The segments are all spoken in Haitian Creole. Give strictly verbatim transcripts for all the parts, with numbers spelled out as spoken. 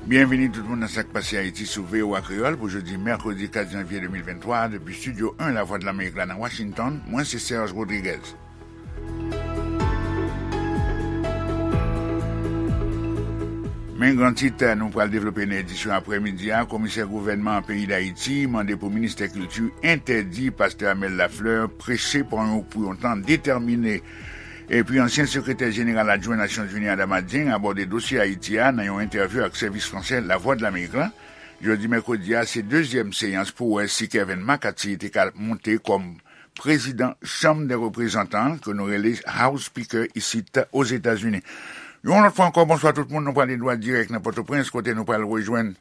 Byenvini tout moun nan Sa k Pase Ayiti sou V O A Kreyòl pou jodi mèkredi kat janvye de mil venntwa, depi Estidyo en Lavwadlamerik la nan Washington, mwen se Serge Rodriguez. Men gran tit nou pral devlope nan edisyon aprèmidi a, komisè gouvènman peyi Dayiti mande pou ministè kilti entèdi pastè Amel Lafleur preche pou yon, pou yon tan detèmine. Epi ansyen sekretè jeneral adjwen Nasyonzini Adama Dieng abòde dosye Ayiti a nan yon entèvyou ak sèvis fransè Lavwadlamerik la. Jodi mèkredi a, se dezyèm seyans pou wè si Kevin McCarthy te ka monte kòm prezidan Chanm dè Reprezantan, ke nou rele House Speaker isit Ozetazini. Yon lòt fwa ankò, bonswa tout moun, nou pral dwat dirèk nan Pòtoprens, kote nou pral rejwenn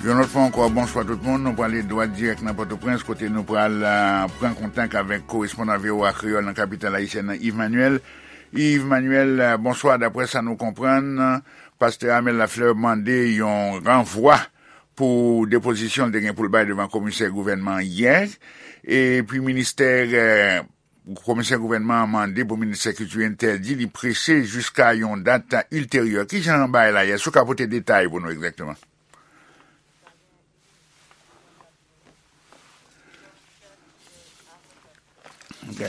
Yon lòt fwa ankò, bonswa tout moun. Nou prale dwat dirèk nan Pòtoprens, kote nou pral, ah, pran kontak avèk korespondan V O A Kreyòl nan kapital ayisyèn nan, Yves Manuel. Yves Manuel, ah, bonswa. Daprè sa nou konprann, pastè Amel Lafleur mande yon ranvwa pou depozisyon l te gen pou l bay devan komisè gouvènman an yè. Epi ministè, eh, komisè gouvènman an mande pou ministè kilti entèdi li preche jiska yon dat ilteryè. Kijan bagay la ye? Si w ka pote detay pou nou egzakteman. Ok.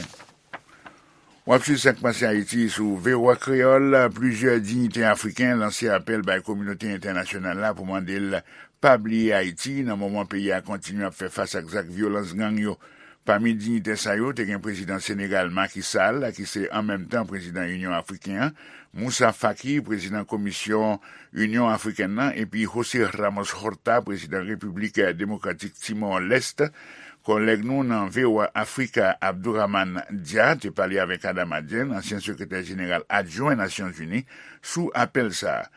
W ap swiv Sa k Pase Ayiti sou V O A Kreyòl. Plizyè diyitè afriken lanse apèl bay kominote entènasyonal la pou mande l pa bliye Ayiti nan moman peyi a kontinye ap fè fas ak zak vyolans gang yo. Pami diyitè sa yo, te gen prezidan Senegal Macky Sall, ki se an menm tan prezidan Inyon Afriken an, Moussa Faki, prezidan Komisyon Inyon Afrikèn nan, epi José Ramos Horta, prezidan Repiblik Demokratik Timor Leste. Kòlèg nou nan V O A Africa, Abdourahmane Dia, te pale avèk Adama Dieng, ansyen sekretè jeneral adjwen Nasyonzini, sou apèl sa a.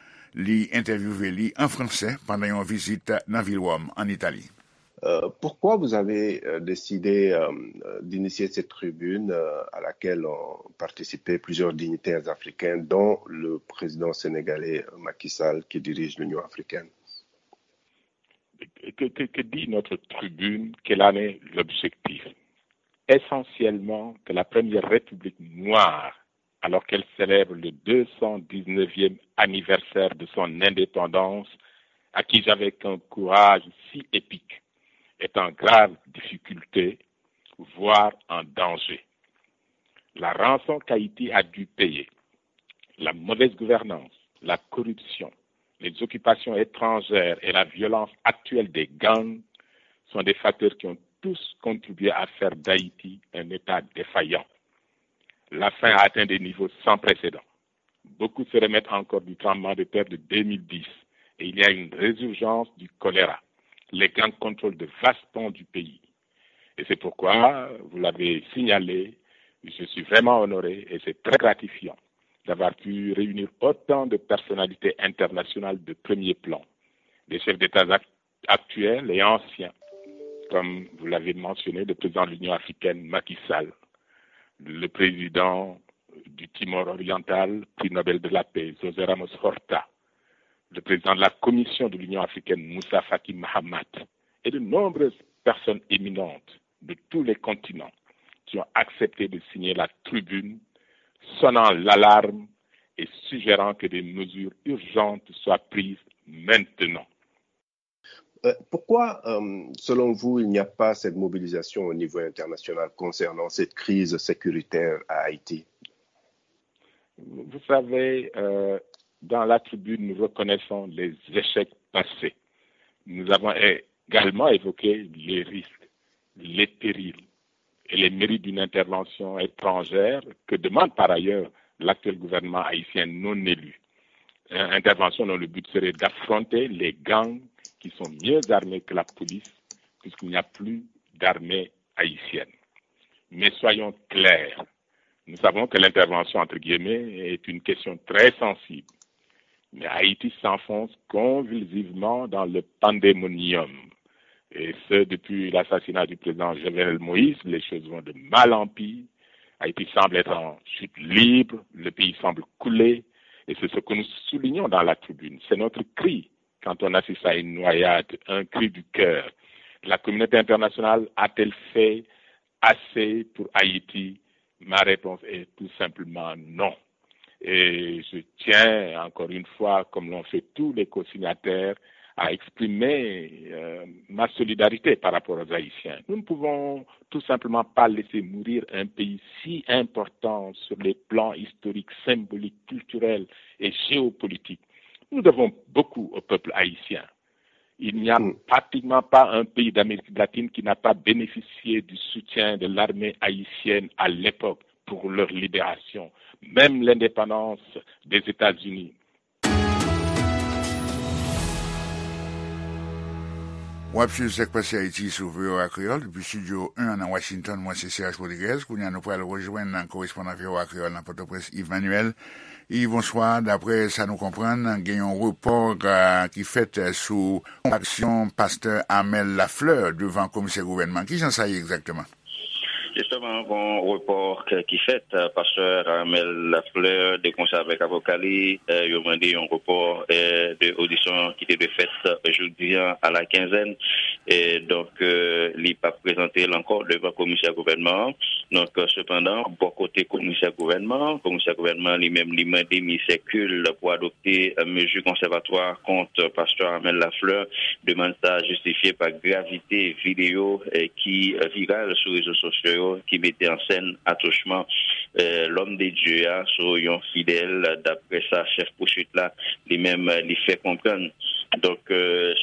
Li entèvyouve li an fransè pandan yon vizit nan vil Wòm, an Itali. Euh, pourquoi vous avez, euh, décidé, euh, d'initier cette tribune, euh, à laquelle ont participé plusieurs dignitaires africains, dont le président sénégalais, euh, Macky Sall, qui dirige l'Union africaine? Que, que, que dit notre tribune? Quel en est l'objectif? Essentiellement que la première république noire, alors qu'elle célèbre le deux cent dix-neuvième anniversaire de son indépendance, acquise avec un courage si épique, est en grave difficulté, voire en danger. La rançon qu'Haïti a dû payer, la mauvaise gouvernance, la corruption, les occupations étrangères et la violence actuelle des gangs sont des facteurs qui ont tous contribué à faire d'Haïti un État défaillant. La faim a atteint des niveaux sans précédent. Beaucoup se remettent encore du tremblement de terre de deux mille dix et il y a une résurgence du choléra. Les gangs contrôlent de vastes pans du pays. Et c'est pourquoi, vous l'avez signalé, je suis vraiment honoré et c'est très gratifiant d'avoir pu réunir autant de personnalités internationales de premier plan, des chefs d'État actuels et anciens, comme vous l'avez mentionné, le président de l'Union africaine, Macky Sall, le président du Timor oriental, prix Nobel de la paix, José Ramos Horta, le président de la Commission de l'Union africaine, Moussa Faki Mahamat, et de nombreuses personnes éminentes de tous les continents qui ont accepté de signer la tribune, sonnant l'alarme et suggérant que des mesures urgentes soient prises maintenant. Euh, pourquoi, euh, selon vous, il n'y a pas cette mobilisation au niveau international concernant cette crise sécuritaire à Haïti? Vous savez, euh, dans la tribune, nous reconnaissons les échecs passés. Nous avons également évoqué les risques, les périls et les mérites d'une intervention étrangère que demande par ailleurs l'actuel gouvernement haïtien non élu. Une intervention dont le but serait d'affronter les gangs qui sont mieux armés que la police, puisqu'il n'y a plus d'armée haïtienne. Mais soyons clairs, nous savons que l'intervention, entre guillemets, est une question très sensible. Mais Haïti s'enfonce convulsivement dans le pandémonium. Et ce, depuis l'assassinat du président Jovenel Moïse, les choses vont de mal en pire. Haïti semble être en chute libre, le pays semble couler, Et c'est ce que nous soulignons dans la tribune. C'est notre cri quand on assiste à une noyade, un cri du cœur. La communauté internationale a-t-elle fait assez pour Haïti? Ma réponse est tout simplement non. Et je tiens encore une fois, comme l'ont fait tous les co-signataires, à exprimer euh, ma solidarité par rapport aux Haïtiens. Nous ne pouvons tout simplement pas laisser mourir un pays si important sur les plans historiques, symboliques, culturels et géopolitiques. Nous devons beaucoup au peuple haïtien. Il n'y a pratiquement pas un pays d'Amérique latine qui n'a pas bénéficié du soutien de l'armée haïtienne à l'époque pour leur libération, même l'indépendance des États-Unis. W ap swiv Sak Pase Ayiti sou V O A Kreyòl depi estidyo en nan Washington. Mwen se Serge Rodriguez. Kounye a nou pral rejwenn korespondan V O A Kreyòl nan Pòtoprens, Yves Manuel. Yves, bonswa. Daprè sa nou konprann, gen yon repò ki fèt sou aksyon pastè Armel Lafleur devan komisè gouvènman. Kijan sa ye egzakteman? Jisteman, gon repò ki fèt, pastè Armel Lafleur, de konsè avèk avoka li, yo mande yon repò de odisyon ki te dwe fèt jodi an a la kenzèn. Donk, li p ap prezante l ankò devan komisè gouvènman an. Donk, sepandan, bò kote komisè gouvènman an, komisè gouvènman an li menm, li mande minisè kil pou adopte mezi konsèvatwa kont pastè Armel Lafleur. Demann sa a jistifye pa gravite videyo ki viral sou rezo sosyo yo ki mete an sèn atouchman lòm de Dye a sou yon fidèl, daprè sa chèf pouswit la li menm li fè konprann. Donk,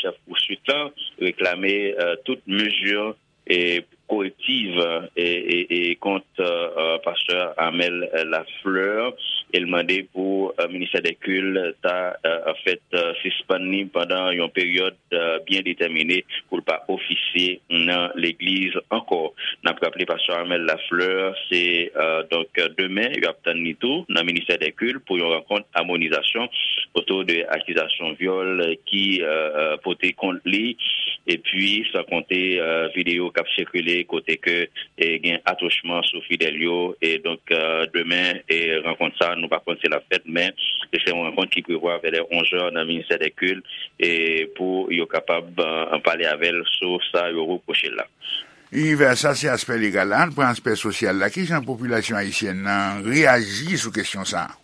chèf pouswit la reklame tout mezi korektiv kont pastè Armel Lafleur e l mande pou ministè dè kil ta anfèt sispann li pandan yon peryòd byen detèmine pou l pa ofisye nan legliz ankò. N ap raple pastè Armel Lafleur se donk demen y ap tann li tou nan ministè dè kil pou yon rankont amonizasyon otou de akizasyon vyòl ki pote kont li epi san konte videyo k ap sikile kote ke gen atouchman sou fidèl yo. Donk demen rankont sa nou pa konn si l ap fèt men se yon rankont ki prevwa vè lè onzè nan ministè dè kil pou yo kapab pale avè l sou sa yo repwoche l la. Yves, sa se aspè legal la. Ann pran aspè sosyal la. Kijan popilasyon ayisyèn nan reyaji sou kesyon sa a?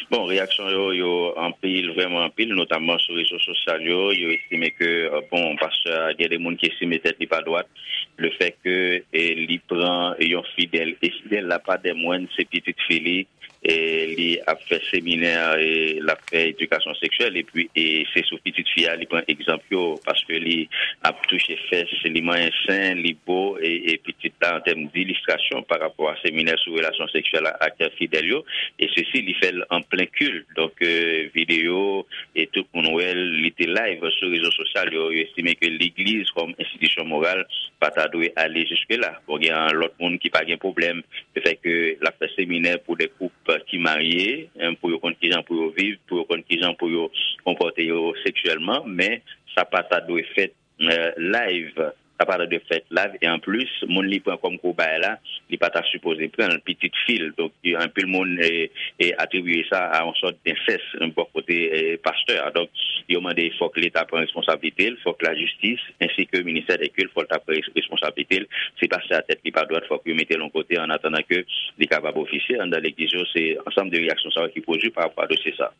Bon, reyaksyon yo yo anpil, vrèman anpil, notamman sou rezo sosyal yo. Yo estime ke bon, pastè a, gen de moun ki estime tèt li pa dwat. Lefètke li pran yon fidèl e fidèl la pa dè mwèn, se pitit fi li. Li ap fè seminè, l ap fè edikasyon seksyèl epi se sou pitit fi a li pran egzanp yo paske li ap touche fès, li manyen sen, li bo e pitit la an tèm dilistrasyon pa rapò a seminè sou relasyon seksyèl ak fidèl yo. E sesi li fè l an plen kil. Donk videyo e tout moun wè l, li te live sou rezo sosyal yo. Yo estime ke legliz kòm enstitisyon moral pa ta dwe ale jiske la. Bon, gen lòt moun ki pa gen pwoblèm lefètke l ap fè seminè pou de koup ki marye, pou yo konn kijan pou yo viv, pou yo konn kijan pou yo konpòte yo seksyèlman, men sa pa ta dwe fèt live. Sa pa ta dwe fèt live e anplis moun li pran kòm kobay la li pa ta sipoze pran l, pitit fi l. Donk anpil moun atribiye sa a yon sòt densès bò kote pastè a. Donk yo mande fòk leta pran responsablite l, fòk lajistis ensi ke ministè dè kil fòk ta pran responsablite l. Si pastè a tèt li pa dwat fòk yo mete l yon kote an atandan ke li kapab ofisye anndan legliz yo. Se ansanm de reyaksyon sa yo ki pwodui pa rapò a dosye sa.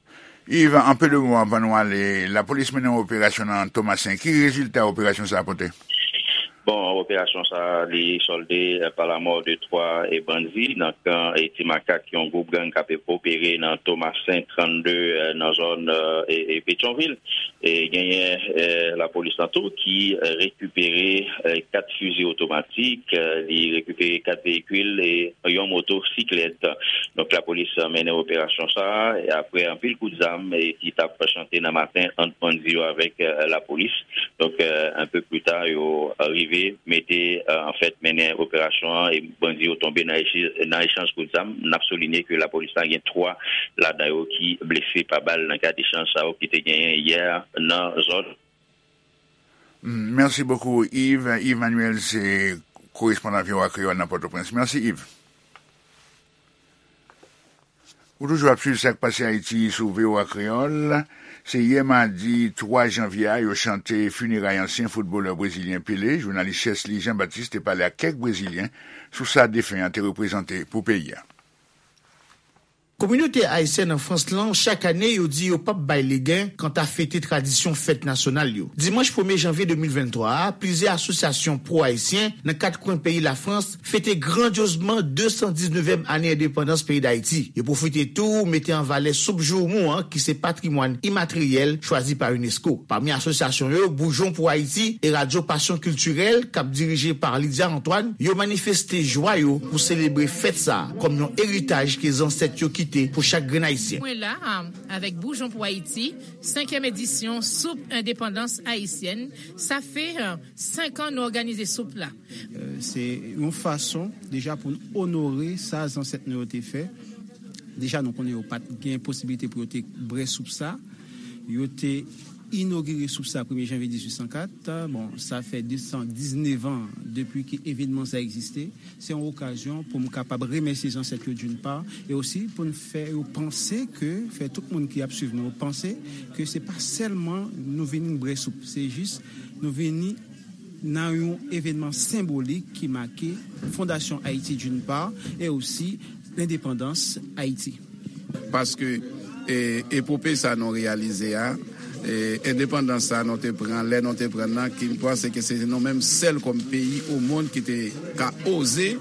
Yves, an pe de mo anvan nou ale, lapolis mennen yon operasyon nan Tomasen. Ki rezilta operasyon sa a pote? Bon, operasyon sa a li sòlde pa lamò de twa bandi nan kan Ti Makak, yon gwoup gang k ap opere nan Tomasen trannde nan zòn Petyonvil. Genyen lapolis lan tou ki rekipere kat fizi otomatik, li rekipere kat veyikil e yon motosiklèt. Donk lapolis mennen operasyon sa a e apre anpil kout zam ki t ap chante nan maten ant bandi yo avèk lapolis. Donk enpe pli ta yo rive mete anfèt mennen operasyon an e bandi yo tonbe nan echanj kout zam. N ap soulinye ke lapolis la gen twa ladan yo ki blese pa bal nan kad echanj sa yo ki te genyen yè nan zòn. Mèsi bokou Yves. Yves Manuel se korespondan V O A Kreyòl nan Pòtoprens. Mèsi Yves. Ou toujou ap swiv Sa k Pase Ayiti sou V O A Kreyòl. Se yè madi twa janvye a yo chante fineray ansyen foutbolè brezilyen Pele. Jounalis Chesly Jean Baptiste te pale ak kèk brezilyen sou sa defen an te reprezante pou peyi a. Kominote ayisyèn an Frans lan, chak ane, yo di yo p ap bay legen kanta fete tradisyon fèt nasyonal yo. Dimanch premye janvye de mil venntwa a, plizyè asosyasyon pwo-ayisyen nan kat kwen peyi Lafrans fete grandyozman de san diznevèm ane endepandans peyi Dayiti. Yo pwofite tou mete an valè soup joumou an, ki se patrimwàn imateryèl chwazi pa unesco. Pami asosyasyon yo, Boujon pou Ayiti e Radyo Pasyon Kiltirèl, k ap dirije pa Lydia Antoine, yo manifeste jwa yo pou selebre fèt sa a kòm yon eritaj ke zansèt yo kite pou chak grenn Ayisyen. Mwen la, avèk Boujon pou Ayiti, senkyèm edisyon Soup Endepandans Ayisyèn. Sa fè, euh, senk an nou òganize soup la. Euh, se yon fason, deja, pou n onore sa zansèt nou yo te fè. Deja, nou konnen yo pa t gen posiblite pou yo te bwè soup sa. Yo te inogire soup sa premye janvye dizuit san kat. Bon, sa fè de san diznèf an depi ke evènman sa egziste. Se yon okazyon pou m kapab remèsye zansèt yo d'une part, e osi pou n fè yo panse ke, fè tout moun ki ap swiv nou panse ke se pa sèlman nou vini bwè soup, se jis nou vini nan yon evènman senbolik ki make fondasyon Ayiti d'une part, e osi lendepandans Ayiti. Paske, e, epope sa nou reyalize a, e, endepandans sa nou te pran, lè nou te pran nan, ki m panse ke se nou menm sèl kòm peyi o mond ki te ka oze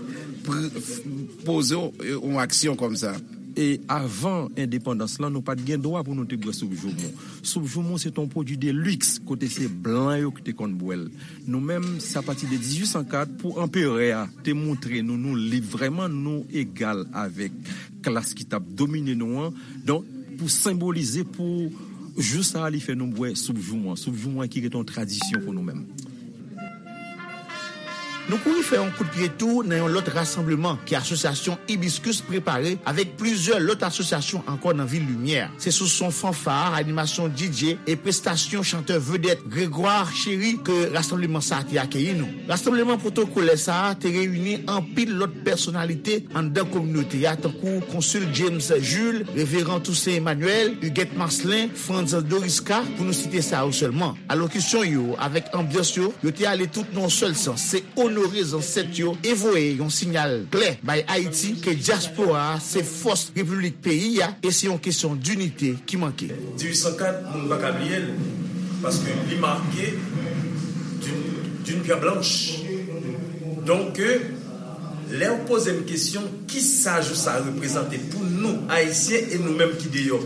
pr-, f-, poze yon, yon aksyon kòm sa. E avan endepandans lan, nou pa t gen dwa pou nou te bwè soup joumou. Soup joumou, se t on pwodui de liks, kote se blan yo ki te konn bwè l. Nou menm, se apati de dizuit san kat, pou anperè a te montre nou, nou lib vrèman, nou egal avèk klas ki t ap domine nou an. Donk, pou senbolize, pou jou sa a, li fè nou bwè soup joumou an. Soup joumou an ki rete yon tradisyon pou nou menm. Nou kouri fè yon kout pye tou nan yon lòt rasanbleman ke asosyasyon Hibiscus prepare avèk plizyè lòt asosyasyon ankò nan vil Limyè. Se sou son fanfa, animasyon D J e prestasyon chantè vedèt Grégoire Chéry ke rasanbleman sa a te akeyi nou. Rasanbleman pwotokolè sa a te reyini anpil lòt pèsonalite anndan kominote a, tankou konsil James Jules, reveran Toussaint Emmanuel, Huguette Marcelin, Frantz Doriska, pou nou site sa yo sèlman. Alokisyon yo avèk anbyans yo, yo te ale tout nan yon sèl sans, se onore zansèt yo e voye yon siyal klè bay Ayiti ke dyaspora a se fòs repiblik peyi a e se yon kesyon dinite ki manke. Dizuit san kat, moun pa ka bliye l, paske li make d'une, d'une pierre blanche. Donk, lè w poze m kesyon, kisa jou sa reprezante pou nou, Ayisyen, e nou menm ki deyò?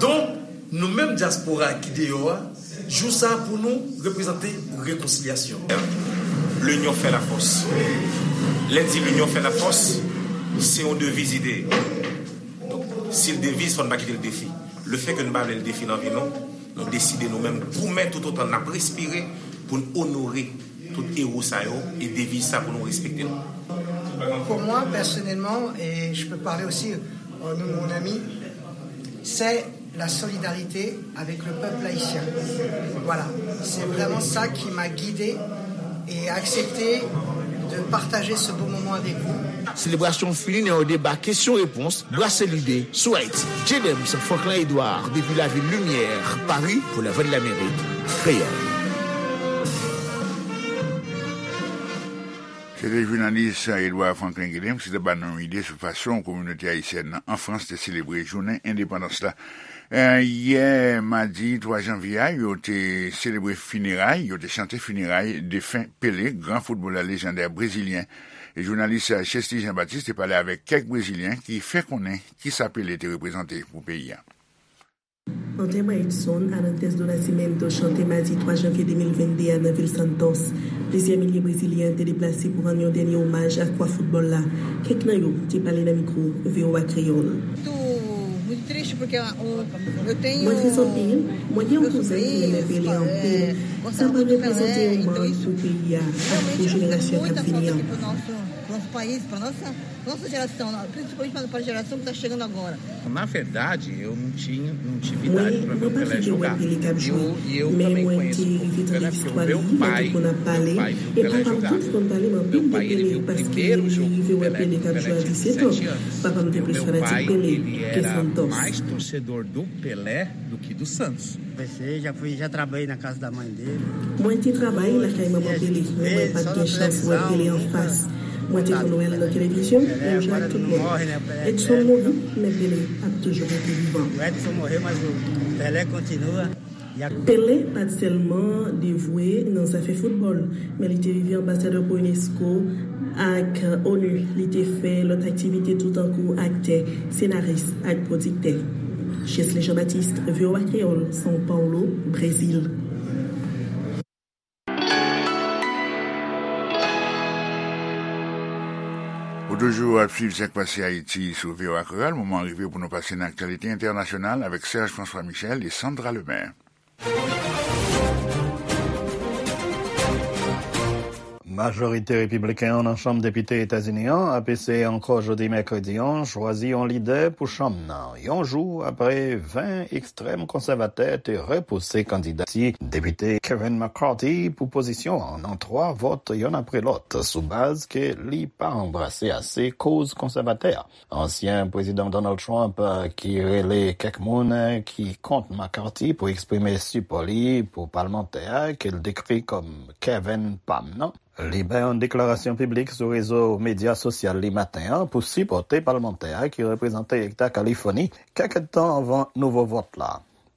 Donk, nou menm dyaspora ki deyò a, jou sa pou nou reprezante rekonsilyasyon. L'union fait la force. Lè n di l'union fait la force, se yon deviz ide. Donk, si l deviz, fò n pa kite l defi. Lefètke nou pa vle l defi nan vi nou, nou deside nou menm goumen toutotan n ap respire pou n onore tout ewo sa yo e deviz sa pou nou respekte l. Pour moi, personnellement, et je peux parler aussi au nom de mon ami, c'est la solidarité avec le peuple haïtien. Voilà, c'est vraiment ça qui m'a guidé et accepté de partager ce beau moment avec vous. Selebrasyon fini nan yon deba kesyon-repons, brase lide sou Ayiti. J Dems Franklin Edouard, depi lavil Limyè, Pari, pou Lavwadlamerik Kreyòl. Se te jounalis Edouard Franklin Guilhem ki te ba nou yon ide sou fason kominote ayisyèn nan an Frans te selebre jounen endepandans la. Eh, yè madi twa janvye a, yo te selebre fineray, yo te chante fineray defen Pele, gran foutbolè lejandè brezilyen. E jounalis Chesly Jean Baptiste te pale avèk kèk brezilyen ki fè konnen kisa Pele te reprezante pou peyi a. Antes Maitson, antes do nascimento, chante madi twa janvye de mil venn de a nan vil Santos. Plizyè milye brezilyen te deplase pou rann yon dènye omaj a kwa foutbòl la. Kèk nan yo te pale nan mikwo V O A Kreyòl. Muito triste porque o, eu tenho Mwen tris anpil. Mwen gen yon kouzen ki renmen Pele anpil. Sa pa reprezante yon mank pou peyi a ak pou jenerasyon k ap vini an. Mwen, mwen pa fenk wè Pele k ap jwe, men mwen te rive tande istwa li, mwen te konn ap pale, e papa m tou te konn pale m anpil de Pele, paske li rive wè Pele k ap jwe a disèt an. Papa m te plis fanatik Pele ke Santos. Mwen te travay lakay manman Pele, men mwen pa t gen chans wè Pele anfas. Mwen te konn wè l nan televizyon, menm jan ak tout moun. Edson mouri, men Pele ap toujou rete vivan. Pele pa t sèlman devwe nan zafè foutbòl, men li te rive anbasadè pou unesco ak onu. Li te fè lòt aktivite tou tankou aktè, senaris ak pwodiktè. Chesley Jean-Baptiste, V O A Kreyòl, São Paulo, Brezil. Ou toujou ap swiv Sa k Pase Ayiti sou V O A Kreyòl. Moman an rive pou nou pase nan aktyalite entènasyonal avèk Serge François Michel e Sandra Lemaire. Majorite repibliken an nan Chanm Depite Etazini an ap eseye ankò jodi mèkredi an chwazi yon lidè pou chanm nan, yon jou apre ven ekstrèm konsèvatè te repouse kandidati Depite Kevin McCarthy pou pozisyon an nan twa vòt yonn apre lòt, sou baz ke li pa anbrase ase koz konsèvatè a. Ansyen Prezidan Donald Trump, ki rele kèk moun ki kont McCarthy pou eksprime sipò li pou palmantè a ke l dekri kòm Kevin Pam nan, li bay yon deklarasyon piblik sou rezo medya sosyal li maten an pou sipòte palmantè a ki reprezante Eta Kalifòni kèk èdtan anvan nouvo vòt la.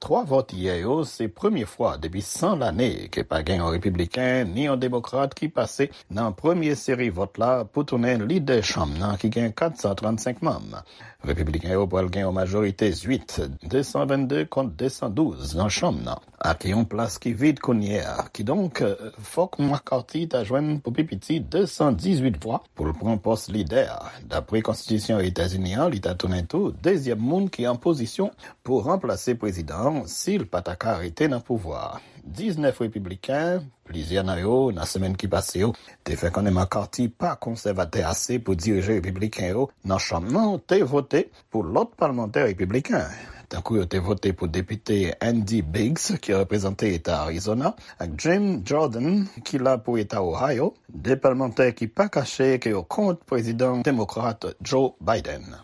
Twa vòt yè yo se premye fwa depi san lane ke pa gen yon repibliken ni yon demokrat ki pase nan premye seri vòt la pou tounen lidè chanm nan ki gen kat san trannsenk manm. Repibliken yo pral gen yon majorite zwit, de san vennde kont de san douz nan chanm nan, ak yon plas ki vid kounye a. Kidonk, fòk McCarthy ta jwenn pou pi piti de san dizuit vwa pou l pran pòs lidè a. Dapre konstitisyon Etazini an, li ta tounen tou dezyèm moun ki an pozisyon pou ranplase prezidan an si l pa ta ka rete nan pouvwa a. Diznèf repibliken, plizyè nan yo, nan semèn ki pase yo, te fè konnen McCarthy pa konsèvatè ase pou dirije repibliken yo nan chanm nan, te vote pou lòt palmantè repibliken, tankou yo te vote pou depite Andy Biggs, ki reprezante eta Arizona, ak Jim Jordan, ki la pou eta Ohio, de palmantè ki pa kache ke yo kont prezidan demokrat Joe Biden.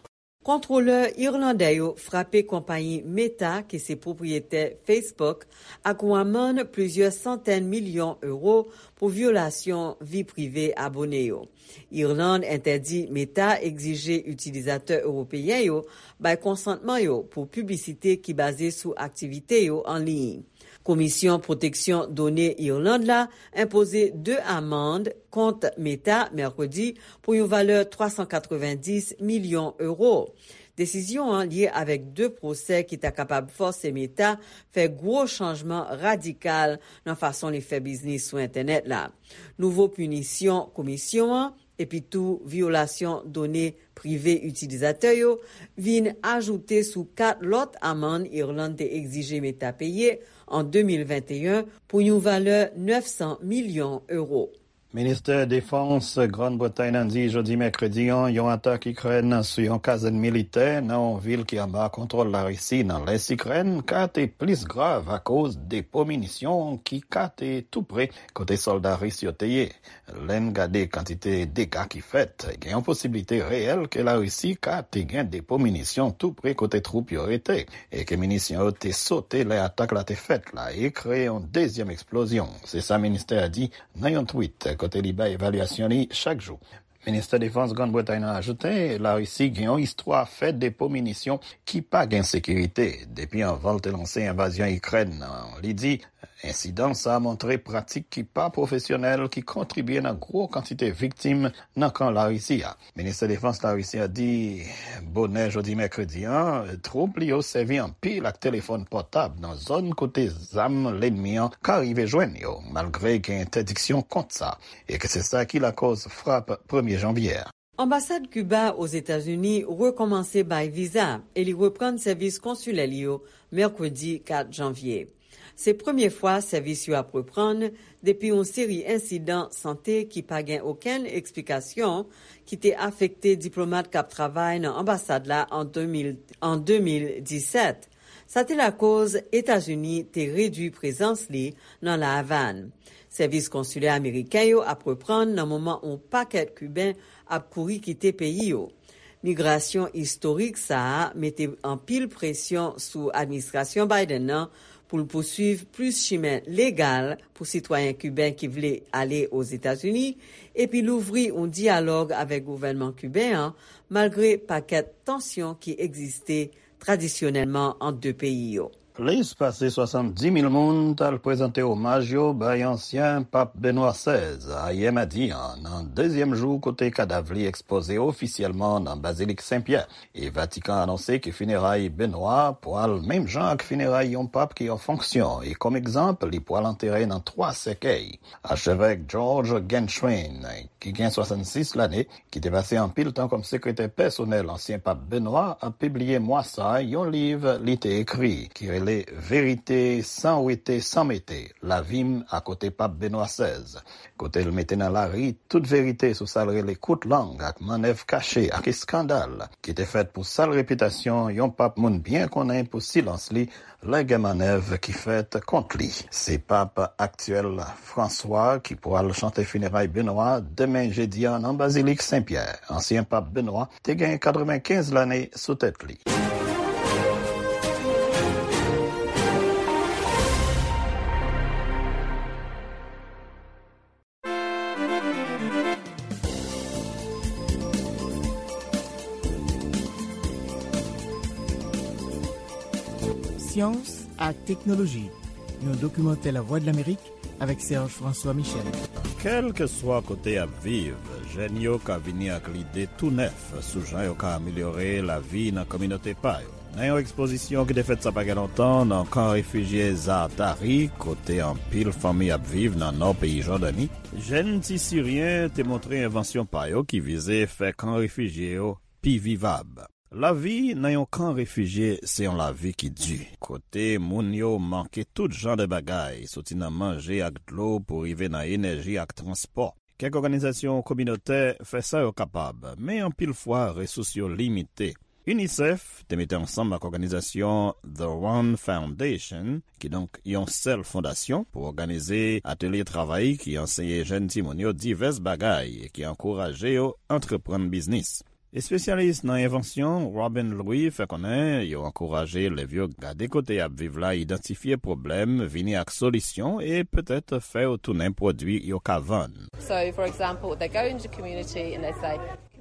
Kontwolè irlandè yo frape konpayi Meta, ki se pwopriyetè Facebook, ak yon amann plizyè santèn milyon ewo pou vyolasyon vi prive abone yo. Irland entèdi Meta egzije itilizatè ewopeyen yo bay konsantman yo pou piblisite ki baze sou aktivite yo an liy. Komisyon Pwoteksyon Done Irland la enpoze de amann kont Meta mèkredi pou yon valè twa san katrevenndis milyon ewo. Desizyon an lye avèk de pwosè ki ta kapab fòse Meta fè gwo chanjman radikal nan fason li fè biznis sou entènèt la. Nouvo pinisyon komisyon an, epi tou vyolasyon done prive itilizatè yo, vin ajoute sou kat lòt amann Irland te egzije Meta peye an de mil venteyen pou yon valè nèf san milyon ewo. Ministè Defans Grann Bretay nan di jodi mèkredi an, yon atak Ikrèn sou yon kazèn militè nan yon vil ki anba kontwòl Larisi nan lès Ikrèn ka te plis grav akoz depo minisyon ki ka te tou pre kote sòlda ris yo te ye. Lè n gade kantite dega ki fèt, gen yon posiblite reyèl ke Larisi ka te gen depo minisyon tou pre kote twoup yo rete, e ke minisyon yo te sote lè atak la te fèt la e kreye yon dezyèm eksplozyon. Se sa ministè a di nan yon tweet kote li bay evalyasyon li chak jou. Ministè Defans Grann Bretay nan ajoute, Larisi gen yon istwa fè depo minisyon ki pa gen sekirite depi anvan l te lanse envazyon Ikrèn nan. Li di, ensidan sa a montre pratik ki pa pwofesyonèl ki kontribye nan gwo kantite viktim nan kan Larisi a. Ministè Defans Larisi a di, bonè jodi mèkredi an, twoup li yo sèvi anpil ak telefòn pòtab nan zòn kote zam lènmi an ka rive jwenn yo, malgre gen entèdiksyon kont sa, e ke se sa ki lakòz frap premye janvye a. Anbasad Kiba Ozetazini rekòmanse bay viza e li reprann sèvis konsilè li yo mèkredi kat janvye. Se premye fwa sèvis yo ap reprann depi yon seri ensidan sante ki pa gen okenn eksplikasyon ki te afekte diplomat k ap travay nan anbasad la an de mil, an de mil disèt. Sa te lakoz Etazini te redui prezans li nan La Avàn. Sèvis konsilè ameriken yo ap reprann nan moman yon pakèt Kiben ap kouri kite peyi yo. Migrasyon istorik sa a mete anpil presyon sou administrasyon Biden nan pou l pousuiv plis chimen legal pou sitwayen kiben ki vle ale Ozetazini, epi louvri yon dyalòg avèk gouvènman kiben an, malgre pakèt tansyon ki egziste tradisyonèlman ant de peyi yo. Plis pase swasanndimil moun t al prezante omaj yo bay ansyen Pap Benwa sèz ayè madi a, nan dezyèm jou kote kadav li ekspoze ofisyèlman nan Bazilik Sen Pyè. E Vatikan anonse ke fineray Benwa pwal menm jan ak fineray yon pap ki an fonksyon, e kòm egzanp, li pwal antere nan twa sèkèy. Achevèk George Genswein, ki gen swasannsis lane, ki te pase anpil tan kòm sekretè pèsonèl ansyen pap Benwa, ap pibliye mwa sa a yon liv li te ekri, ki rele Verite san wete, san mete, Lavi m akote Pap Benwa sèz, kote l mete nan lari tout verite sou sa l rele kout lang ak mannèv kache ak eskandal ki te fèt pou sal repitasyon yon pap moun byen konnen pou silans li lè gen mannèv ki fèt kont li. Se pap aktyèl Franswa ki pral chante fineray Benwa demen jedi a nan Bazilik Sen Pyè. Ansyen pap Benwa te gen katrevenkenz lane sou tèt li. Syans ak teknoloji, yon dokimantè Lavwadlamerik avèk Serge François Michel. Kèlkeswa kote y ap viv, jèn yo ka vini ak lide tou nèf sou jan yo ka amelyore lavi nan kominote pa yo. Nan yon ekspozisyon ki te fèt sa pa gen lontan nan kan refijye Zaatari, kote anpil fanmi ap viv nan nò peyi Jòdani, jèn ti Siryen te montre envansyon pa yo ki vize fè kan refijye yo pi vivab. Lavi nan yon kan refijye se yon lavi ki di, kote moun yo manke tout jan de bagay, soti nan manje ak dlo pou rive nan enèji ak transpò. Kèk òganizasyon kominotè fè sa yo kapab, men anpil fwa resous yo limite. UNICEF te mete ansanm ak òganizasyon The One Foundation, kidonk yon sèl fondasyon, pou òganize atelye travay ki anseye jèn timoun yo divès bagay e ki ankouraje yo antreprann biznis. Espesyalis nan envansyon Robin Louis fè konnen yo ankouraje elèv yo gade kote y ap viv la, idantifye pwoblèm, vini ak solisyon e petèt fè yo tounen pwodui yo ka vann. So, for example, they go into community and they say,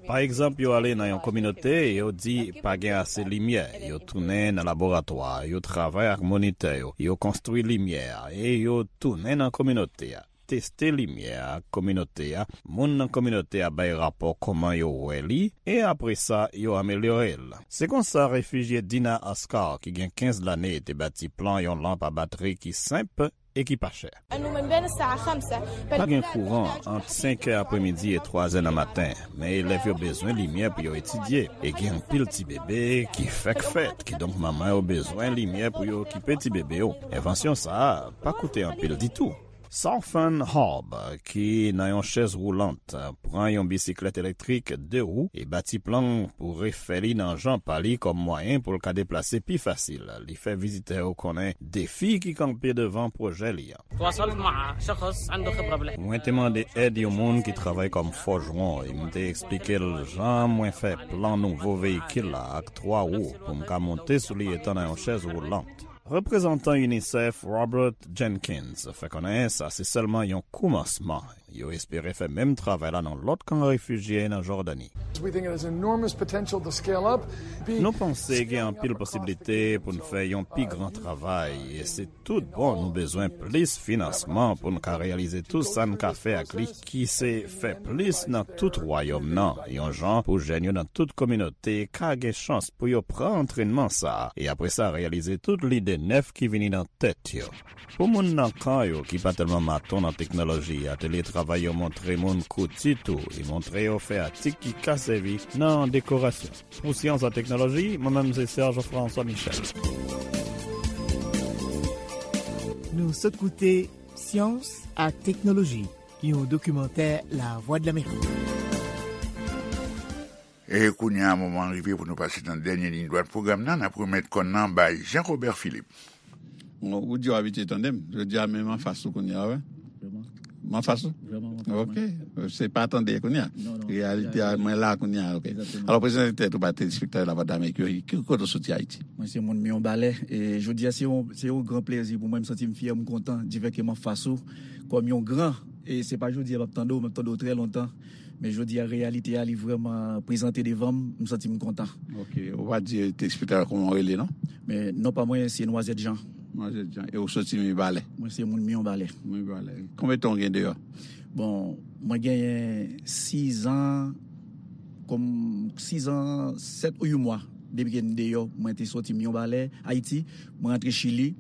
Pa egzanp, yo ale nan yon kominote e yo di pa gen ase limyè. Yo tounen nan laboratwa, yo travay ak monitè yo, yo konstwi limyè a e yo tounen nan kominote a. Teste limyè a ak kominote a, moun nan kominote a bay rapò kòman yo wè li, e apre sa, yo amelyore l. Se konsa refijye Dina Ascar, ki gen kenz lane, te bati plan yon lanp a batri ki senp e ki pa chè. Pa gen kouran ant senk è apremidi e twa è nan maten, men elèv yo bezwen limyè pou yo etidye, e gen anpil ti bebe ki fèk fèt, kidonk manman yo bezwen limyè pou yo okipe ti bebe yo. Envansyon sa a pa koute anpil ditou. Southern Hub, ki nan yon chèz woulant, pran yon bisiklèt elektrik de wou e bati plan pou refè li nan jan pa li kòm mwayen pou l ka deplase pi fasil. Li fè vizitè yo konnen defi ki kanpe devan pwojè li an. تواصلت مع شخص عنده خبرة بالحياة. Mwen te mande èd yon moun ki travay kòm fòjwon e m te eksplike l jan mwen fè plan nouvo veyikil la ak twa wou pou m ka monte sou li etan nan yon chèz woulant. Reprezantan UNICEF Robert Jenkins fè konnen sa se sèlman yon koumansman. Yo espere fè menm travay la nan lòt kan refijye nan Jòdani. We think it has enormous potential to scale up. Nou panse gen anpil posiblite pou n fè yon pi gran travay, e se tout bon nou bezwen plis finansman pou n ka reyalize tout sa n ka fè ak li, ki se fè plis nan tout wayòm nan, yon jan pou jèn yo nan tout kominote ka gen chans pou yo pran antrènman sa a, e apre sa reyalize tout lide nèf ki vini nan tèt yo. Pou moun nan kan yo ki pa tèlman maton nan teknoloji, atelye travay yo montre moun kouti tou e montre yo fè atik ki ka sèvi nan dekorasyon. Pou Syans ak Teknoloji, mwen menm se Serge François Michel. Nou sot koute Syans ak Teknoloji, yon dokimantè Lavwadlamerik. E kounye a, moman rive pou nou pase nan dènye liy dwat pwogram nan. N ap remèt kòn nan bay Jean Robert Philippe. Ou di w abitye tande m. Jodi a, men m anfas ou kounye a, wè. M anfas ou? Ok. Se pa tande kounye a. Reyalite a, mwen la kounye a, ok. Alò, prezante tèt ou ba telespektatè Lavwadlamerik yo, ki kote w soti Ayiti? Mwen se moun Miyonbalè. E jodi a, se yon, se yon gran plezi pou mwen. M santi m fyè, m kontan, difèke m anfas ou, kòm yon gran. E se pa jodi a m ap tande w, m ap tande w trè lontan. Men jodi a, reyalite a, li vrèman prezante devan m, m santi m kontan. Ok, ou pa di telespektatè kòman w rele, non? Men non pa mwen, se Nwazèt Jan. Nwazèt Jan. E ou soti Mibalè? Mwen se moun Miyonbalè. Mibalè. Konbyen tan w gen deyò? Bon, mwen genyen sizan, kòm sizan, sèt ou uit mwa depi ke m deyò. Mwen te soti Miyonbalè, Ayiti, mwen rantre Chili.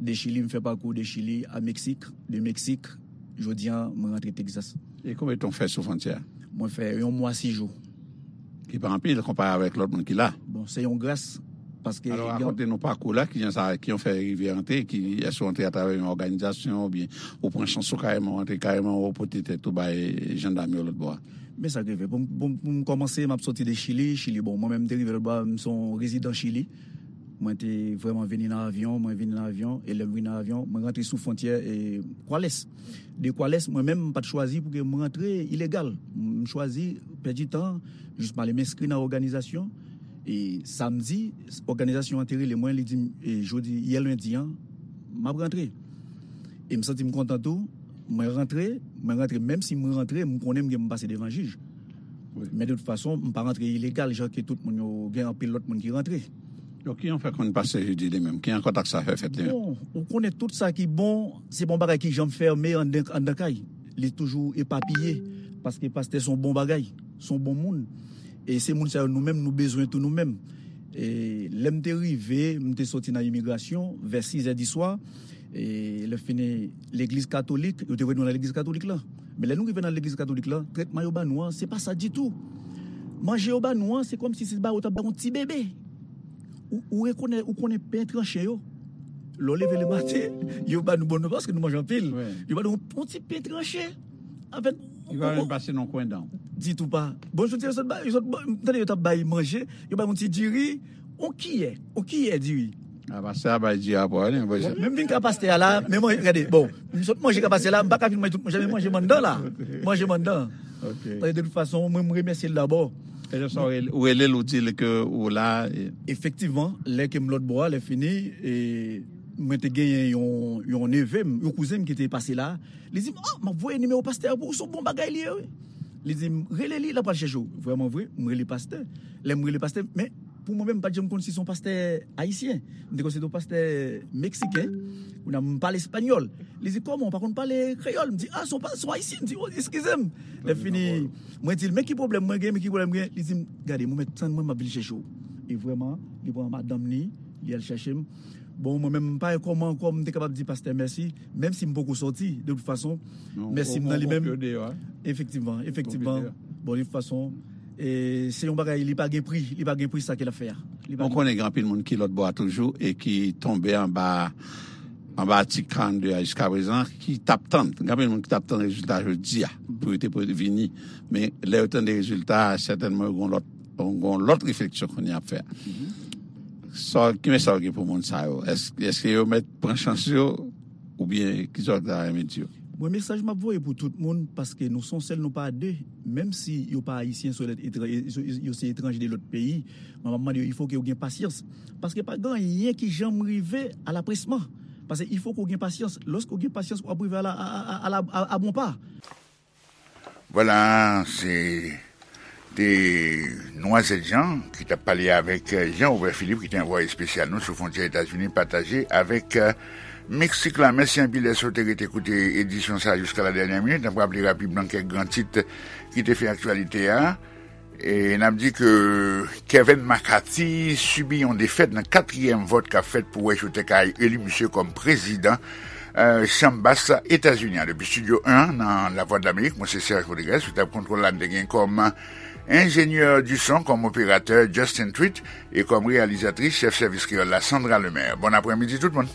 De Chili, m fè pakou de Chili a Meksik. De Meksik, jodi a, mwen rantre Texas. E konbyen tan w fè sou fwontyè a? Mwen fè yon mwa sis jou. Ki pa anpil konpare avèk lòt moun ki la. Bon, se yon gras, paske... Alò, rakonte nou pakou la, kijan sa, ki w fè rive antre, ki, èske w antre atravè yon òganizasyon, oubyen ou pran chans ou kareman, w antre kareman, ou pote tèt ou bay jandam yo lòt bò a? Men sa k rive. Pou m, pou m, pou m kòmanse, m ap soti de Chili. Chili, bon, mwen menm, m te rive lòt bò a, m se yon rezidan Chili. Mwen te vrèman vini nan avyon, mwen vini nan avyon, e lè m vini nan avyon, mwen rantre sou fwontyè, e, Kwalès. De Kwalès, mwen menm, m pa t chwazi pou ke m rantre ilegal. M chwazi pèdi tan, jis m ale m enskri nan òganizasyon. E samdi, òganizasyon an te rele mwen, li di m, e, jodi, yè lendi an, m ap rantre. E m santi m kontan tou, mwen rantre, mwen rantre, menm si m rantre, m konnen m gen pou m pase devan jij. Wi. Men de tout fason, m pa rantre ilegal, jan ke tout moun yo, gen anpil lòt moun ki rantre. Donk, kijan w fè konn pastè Judi li menm? Kijan kontak sa fè fèt li menm? Bon, ou konnen tout sa ki bon, se pa yon bagay ki janm fèmen anndan, anndan kay. Li toujou epapiye, paske pastè se yon bon bagay, se yon bon moun. E se moun sa yo nou menm, nou bezwen tou nou menm. E lè m te rive, m te soti nan imigrasyon vè sizè di swa. E lè fini, legliz katolik, yo te voye nou nan legliz katolik la. Men lè nou rive nan legliz katolik la, trètman yo ba nou an, se pa sa ditou. Manje yo ba nou an, se kòmsi se ba yo t ap ba yon ti bebe. Ou, ou rekonè-, ou konnen pen tranche yo. Lè w leve lematen, yo ba nou bon, paske nou manje anpil. Wi. Yo ba nou yon, yon ti pen tranche. Anfèt, yo pa menm pase nan kwen dan w. Ditou pa. Bon, jodi a, yo sot ba, yo sot ba, m tande yo t ap bay manje, yo bay yon ti diri, yon kiyè, yon kiyè diri. A, pastè a bay diri a pou li, men m vin ka pastè a la, men mwen, gade, bon, m sot manje ka pastè a la, m pa ka fin manje tout manje, men manje m anndan la. Manje m anndan. Ok. Paske de tout fason, mwen, m remèsye l dabò. E lè sa w rele, ou rele l, ou di l ke ou la, e... Efektivman, lè ke m lòt bò a, lè fini, e, mwen te genyen yon, yon neve m, yon kouzen m ki te pase la. Li di m, "Oh, m ap voye nimewo pastè a pou ou, se yon bon bagay li ye, wi." Li di m, "Rele li, l ap al chèche w." Vrèman vre, m rele pastè. Lè m rele pastè, men pou mwen menm, m pa t janm konn si se yon pastè ayisyen. M te konn se yon pastè meksiken. Kounye a, m pale espanyòl. Li di, "Kòman, w pa konn pale kreyòl?" M di, "Ah, se yon pa-, se yon ayisyen." M di, "Oh, eskize m." Lè fini, mwen di l, "Men ki pwoblèm mwen gen, men ki pwoblèm mwen gen?" Li di m, "Gade, mwen mèt tann mwen, m ap vin chèche w." E vrèman, li pran madanm li, li al chèche m. Bon, mwen menm, m pa wè kòman ankò m te kapab di pastè mèsi, menm si m poko sòti, de tout fason, mèsi m nan li menm. Efektivman, efektivman. Bon, de tout fason, e, se yon bagay, li pa gen pri, li pa gen pri sa ke l ap fè a. Li pa gen pri. Mwen konnen gen anpil moun ki lòt bò a toujou e ki tonbe anba, anba atik karannde a jiska prezan, ki t ap tann. Gen anpil moun ki t ap tann rezilta jodi a pou yo te pou vini. Men lè yo tande rezilta a, sètènman yo gen yon lòt, yon lòt refleksyon kounye a ap fè. Sa, ki mesaj ou gen pou moun sa yo? Èske, èske yo mèt pran chans yo oubyen ki sa w ta renmen di yo? Mwen, mesaj m ap voye pou tout moun, paske nou se yon sèl, nou pa de. Menm si yo pa ayisyen, se lòt etran-, yo, yo se etranje de lòt peyi, mwen, m ap mande yo, il faut que yo gen pasyans. Paske pa gen anyen ki janm rive alapresman. Paske il faut que w gen pasyans. Lòske w gen pasyans, w ap rive a la, a, a, a, a la, a, a bon pa. Vwala, se te Nwazèt Jan ki t ap pale avèk, euh, Jean Robert Philippe, ki te anvwaye espesyal nou sou fwontyè Etazini pataje avèk, euh, Meksik la. Mèsi anpil dèske w te rete koute edisyon sa a jiska la dènyè minit. N ap raple rapidman kèk gran tit ki te fè aktyalite a. E n ap di ke Kevin McCarthy sibi yon defèt nan katriyèm vòt k ap fèt pou wè si yo te ka eli misye kòm prezidan, euh, Chanm Bas Etazini an. Depi Estidyo en nan Lavwadlamerik, mwen se Serge Rodriguez, sou tab kontwòl la, n te gen kòm enjenyè di son, kòm operatè Justin Tweet, e kòm reyalizatris, chèf sèvis kreyòl la, Sandra Lemaire. Bon aprèmidi tout moun.